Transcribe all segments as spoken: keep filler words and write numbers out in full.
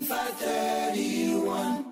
five thirty-one.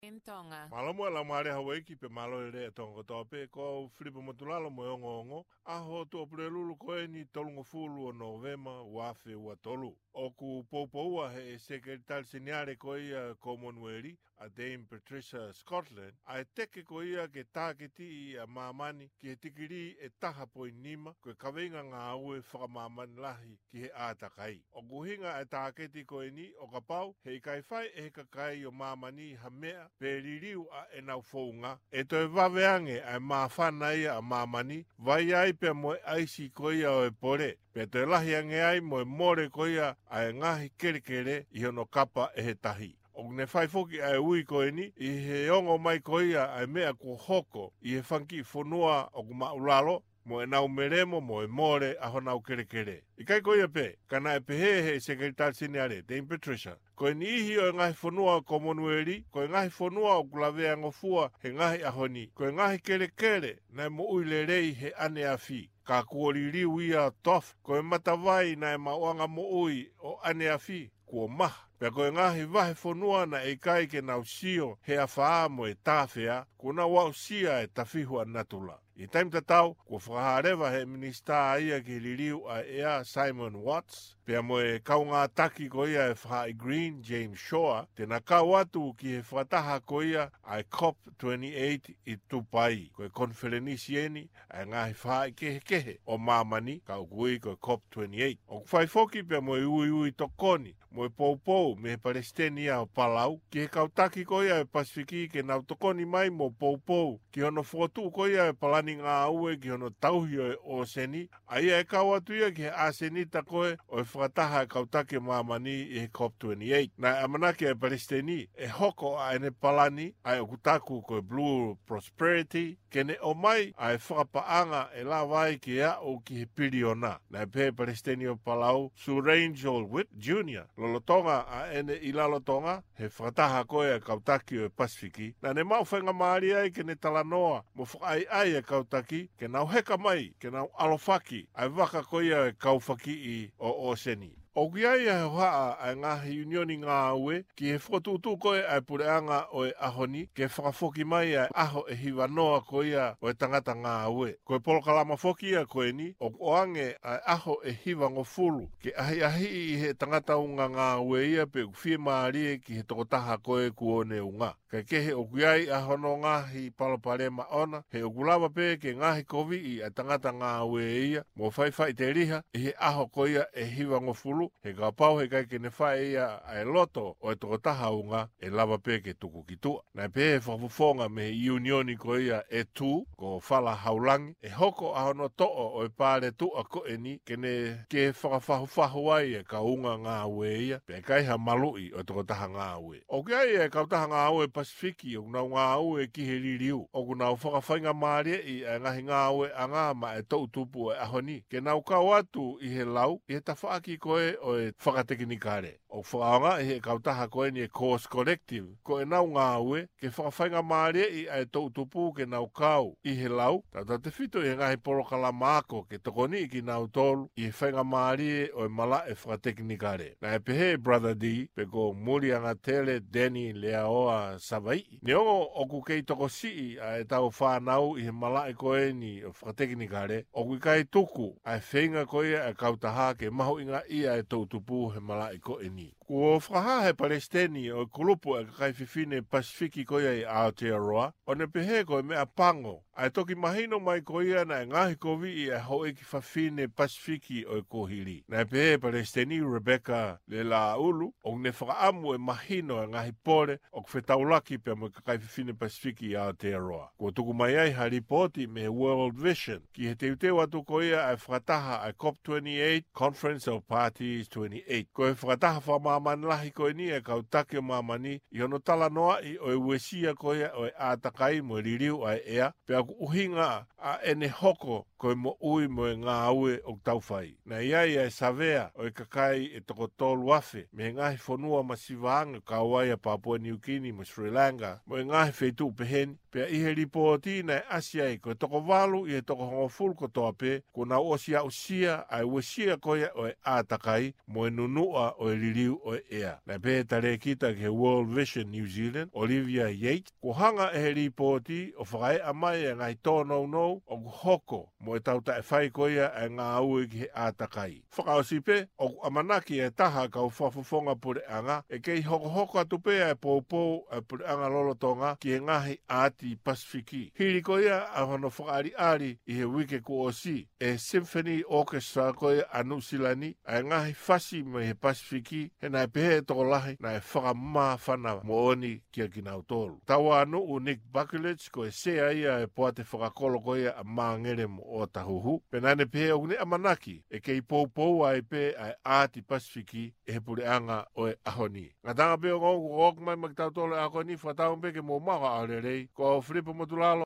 In Tonga. Mālō muʻa e laumālie ʻa houʻeiki pea mālō e lelei ʻa Tonga kotoa pē, ko au Filipe Motulalo mo e ongoongo, ʻaho Tuʻapulelulu ko eni tolungofulu ʻo Nōvema ua afe ua tolu. ʻOku poupoua ʻe he Sekelitali Seniale ko ia Komonueli, ʻa Dame Patricia Scotland, ʻa e teke ko ia ke tāketiʻi ʻa māmani ki he tikilī ʻe taha poini nima, ko e kaveinga ngāue fakamāmani lahi ki he ʻātakai. ʻOku ʻuhinga ʻa e tāketi ko eni ʻo kapau he ʻikai fai ʻe he kakai ʻo māmani ha meʻa pe liliu ʻa ʻenau founga, ʻe toe vave ange ʻa e māfana ia ʻa māmani, vai ai pea mo e ʻaisi ko ia ʻo e pole, pea toe lahi ange ai mo e mole ko ia ʻa e ngaahi kelekele ʻi hono kapa ʻe he tahi. ʻOku ne fai foki ʻa e ui ko eni ʻi he ongo mai ko ia ʻa e meʻa kuo hoko ʻi he fanga kiʻi fonua ʻoku māʻulalo, mo ʻenau melemo mo e mole ʻa honau kelekele. ʻIkai ko ia pē, ka naʻe pehē ʻe he Sekelitali Seniale, Dame Patricia, ko e niʻihi ʻo e ngaahi fonua ʻo e Komonueli, ko e ngaahi fonua ʻoku laveangofua he ngaahi ʻaho ni, ko e ngaahi kelekele naʻe moʻui lelei he ʻaneafi, ka kuo liliu ia ʻo tofa, ko e matavai naʻe maʻuʻanga moʻui ʻo ʻaneafi kuo maha, pea ko e ngaahi vahefonua naʻe ʻikai ke nau sio he afā mo e tāfea, kuo nau aʻusia e tafihu ʻa natula. ʻI he taimi tatau, kuo fakahā leva ʻe he Minisitā ia ki he Liliu ʻa e ʻEa, Simon Watts, pea mo e kaungātaki ko ia ʻo e Faʻahi Green, James Shaw, te na kau atu ki he fakataha ko ia ʻa e COP twenty-eight ʻi Tupai. Ko e konifelenisi eni ʻa e ngaahi faʻahi kehekehe ʻo māmani, ka ʻoku ui ko e COP twenty-eight. ʻOku fai foki pea mo e uiui tokoni mo e poupou mei he Palesiteni ia ʻo Palau ki he kau taki ko ia ʻo e Pasifiki ke nau tokoni mai mo poupou ki hono fokotuʻu ko ia ʻo e palani ngāue ki hono tauhi ʻo e ʻōseni, ʻa ia ʻe kau atu ia ki he ʻasenita ko ē ʻo e fakataha ʻa e kau taki ʻo māmani ʻi he COP twenty-eight. Naʻe ʻamanaki ʻa e Palesiteni ʻe hoko ʻa ʻene palani, ʻa ia ʻoku taku ko e Blue Prosperity, ke ne ʻomai ʻa e fakapaʻanga ʻe lava ai ke aʻu ki he piliona. Naʻe pehē ʻe he Palesiteni ʻo Palau, Surangel Whipps Junior, lolotonga ʻa ʻene ʻi Rarotonga he fakataha ko ē ʻa e kau taki ʻo e Pasifiki, naʻa ne maʻu faingamālie ai ke ne talanoa mo fakaʻaiʻai ʻa e kau taki ke nau heka mai ke nau ʻalofaki ʻa e vaka ko ia ʻo e kau fakiʻi ʻo ʻōseni. ʻOku ʻi ai ʻa e hohaʻa ʻa e ngaahi ʻiunioni ngāue ki he fokotuʻutuʻu ko ē ʻa e puleʻanga ʻo e ʻaho ni ke fakafoki mai ʻa e ʻaho ʻe hivanoa ko ia ʻo e tangata ngāue. Ko e polokalama foki ia ko eni ʻoku ʻoange ʻa e ʻaho ʻe hivangofulu ke ʻahiʻahiʻi ʻe he tangata unga ngāue ia pe ʻoku fiemālie ki he tokotaha ko ē kuo ne unga. Kae kehe ʻoku ʻi ai ʻa hono ngaahi palopalema ʻona, he ʻoku lava pē ke ngaahi koviʻi ʻa e tangata ngāue ia mo faifaʻiteliha ʻi he ʻaho ko ia ʻe hivangofulu, he kapau he ʻikai ke ne fai ia ʻa e loto ʻo e tokotaha unga, ʻe lava pē ke tuku ki tuʻa. Naʻe pehē ʻe he fakafofonga mei he ʻiunioni ko ia ʻe tū, ko Fala Haulangi, ʻe hoko ʻa hono toʻo ʻo e paletuʻa ko eni ke ne ke fakafahufahu ai e kau unga ngāue ia, pea ʻikai ha maluʻi ʻo e tokotaha ngāue. ʻOku ʻi ai e kautaha ngāue Pasifiki ʻoku nau ngāue ki he liliu, ʻoku nau fakafaingamālieʻi ʻa e ngaahi ngāueʻanga maʻa e toʻutupu ʻo e ʻaho ni ke nau kau atu ʻi he lau ʻi he tafaʻaki ko ē ʻo e fakatekinikale. ʻOku fakaʻaongaʻi ʻe he kautaha ko eni e Course Collective ko ʻenau ngāue ke fakafaingamālieʻi ʻa e toʻutupu ke nau kau ʻi he lau, tautautefito ʻi he ngaahi polokalama ako ke tokoniʻi kinautolu ʻi he faingamālie ʻo e malaʻe fakatekinikale. Naʻe pehē ʻe Brother D, pe ko Muliangatele Deni Leaoa Savaiʻi, neongo ʻoku kei tokosiʻi ʻa ʻetau fānau i he malaʻe ko eni ʻo e fakatekinikale, ʻoku ʻikai tuku ʻa e feinga ko ia ʻa e kautaha ke mahuʻingaʻia e toʻutupu he malaʻe ko eni. Kuo fakahā ʻe he palesiteni ʻo e kulupu ʻa e kakai fefine Pasifiki ko ia ʻi Aotearoa, ʻo ne pehē ko e meʻa pango ʻa e toki mahino mai ko ia naʻe ngaohikoviʻi ʻa e houʻeiki fafine Pasifiki ʻo e kuohili. Naʻe pehē ʻe Palesiteni Rebecca Lelāʻulu, ʻoku ne fakaʻamu ʻe mahino ʻa e ngaahi pole ʻoku fetaulaki pea mo e kakai fefine Pasifiki ʻi Aotearoa. Kuo tuku mai ai ha lipooti mei he World Vision ki he teuteu atu ko ia ʻa e fakataha ʻa e COP twenty-eight, Conference of Parties twenty-eight. Ko e fakataha fakamāmani lahi ko eni ʻa e kau taki ʻo māmani ʻi hono talanoaʻi ʻo e uesia ko ia ʻo e ʻātakai mo e liliu ʻa e ʻea, pea ʻoku ʻuhinga ʻa ʻene hoko ko e moʻui mo e ngāue ʻoku tau fai. Naʻe ʻi ai ʻa e savea ʻo e kakai ʻe toko tolu afe mei he ngaahi fonua masiva ange, kau ai ʻa Papua New Guinea mo Sri Lanka mo e ngaahi feituʻu peheni. Pea ʻi he lipooti naʻe ʻasi ai ko e toko valu ʻi he toko hongofulu kotoa pē kuo nau ʻosi aʻusia ʻa e uesia ko ia ʻo e ʻātakai mo e nunuʻa ʻo e liliu ʻo e ʻea. Naʻe pehē ʻe he talēkita ki he World Vision New Zealand, Olivia Yates, kuo hanga ʻe he lipooti ʻo fakaeʻa mai e ngaahi tōnounou ʻoku hoko mo e tau taʻefai ko ia e ngāue ki he ʻātakai. Fakaʻosi pē, ʻoku ʻamanaki e taha kau fakafofonga puleʻanga ʻe kei hokohoko atu pē e poupou e puleʻanga lolotonga ki he ngaahi ʻaati Pasifiki. Hili ko ia ʻa hono fakaʻaliʻali ʻi he uike kuo ʻosi ʻe he Symphony Orchestra ko ia ʻa Nuʻu Sila ni ʻa e ngaahi fasi mei he Pasifiki, he naʻe pehē ʻe he tokolahi naʻe fakamāfana moʻoni kia kinautolu. Tauānuʻu Nick Buckley, ko e sea ia e poate fakakolo ko ia ʻa Māngele mo ʻŌtahuhu, pea naʻa ne pehē ʻoku ne ʻamanaki ʻe kei poupou ai pē ʻa e ʻaati Pasifiki ʻe he puleʻanga ʻo e ʻaho ni. Ngataʻanga pē ongo, kuo ʻoku mai maʻa kitautolu e ako ni, fakatauange pē ke mou maʻu ha ʻaho lelei. Ko au Filipa Motulalo.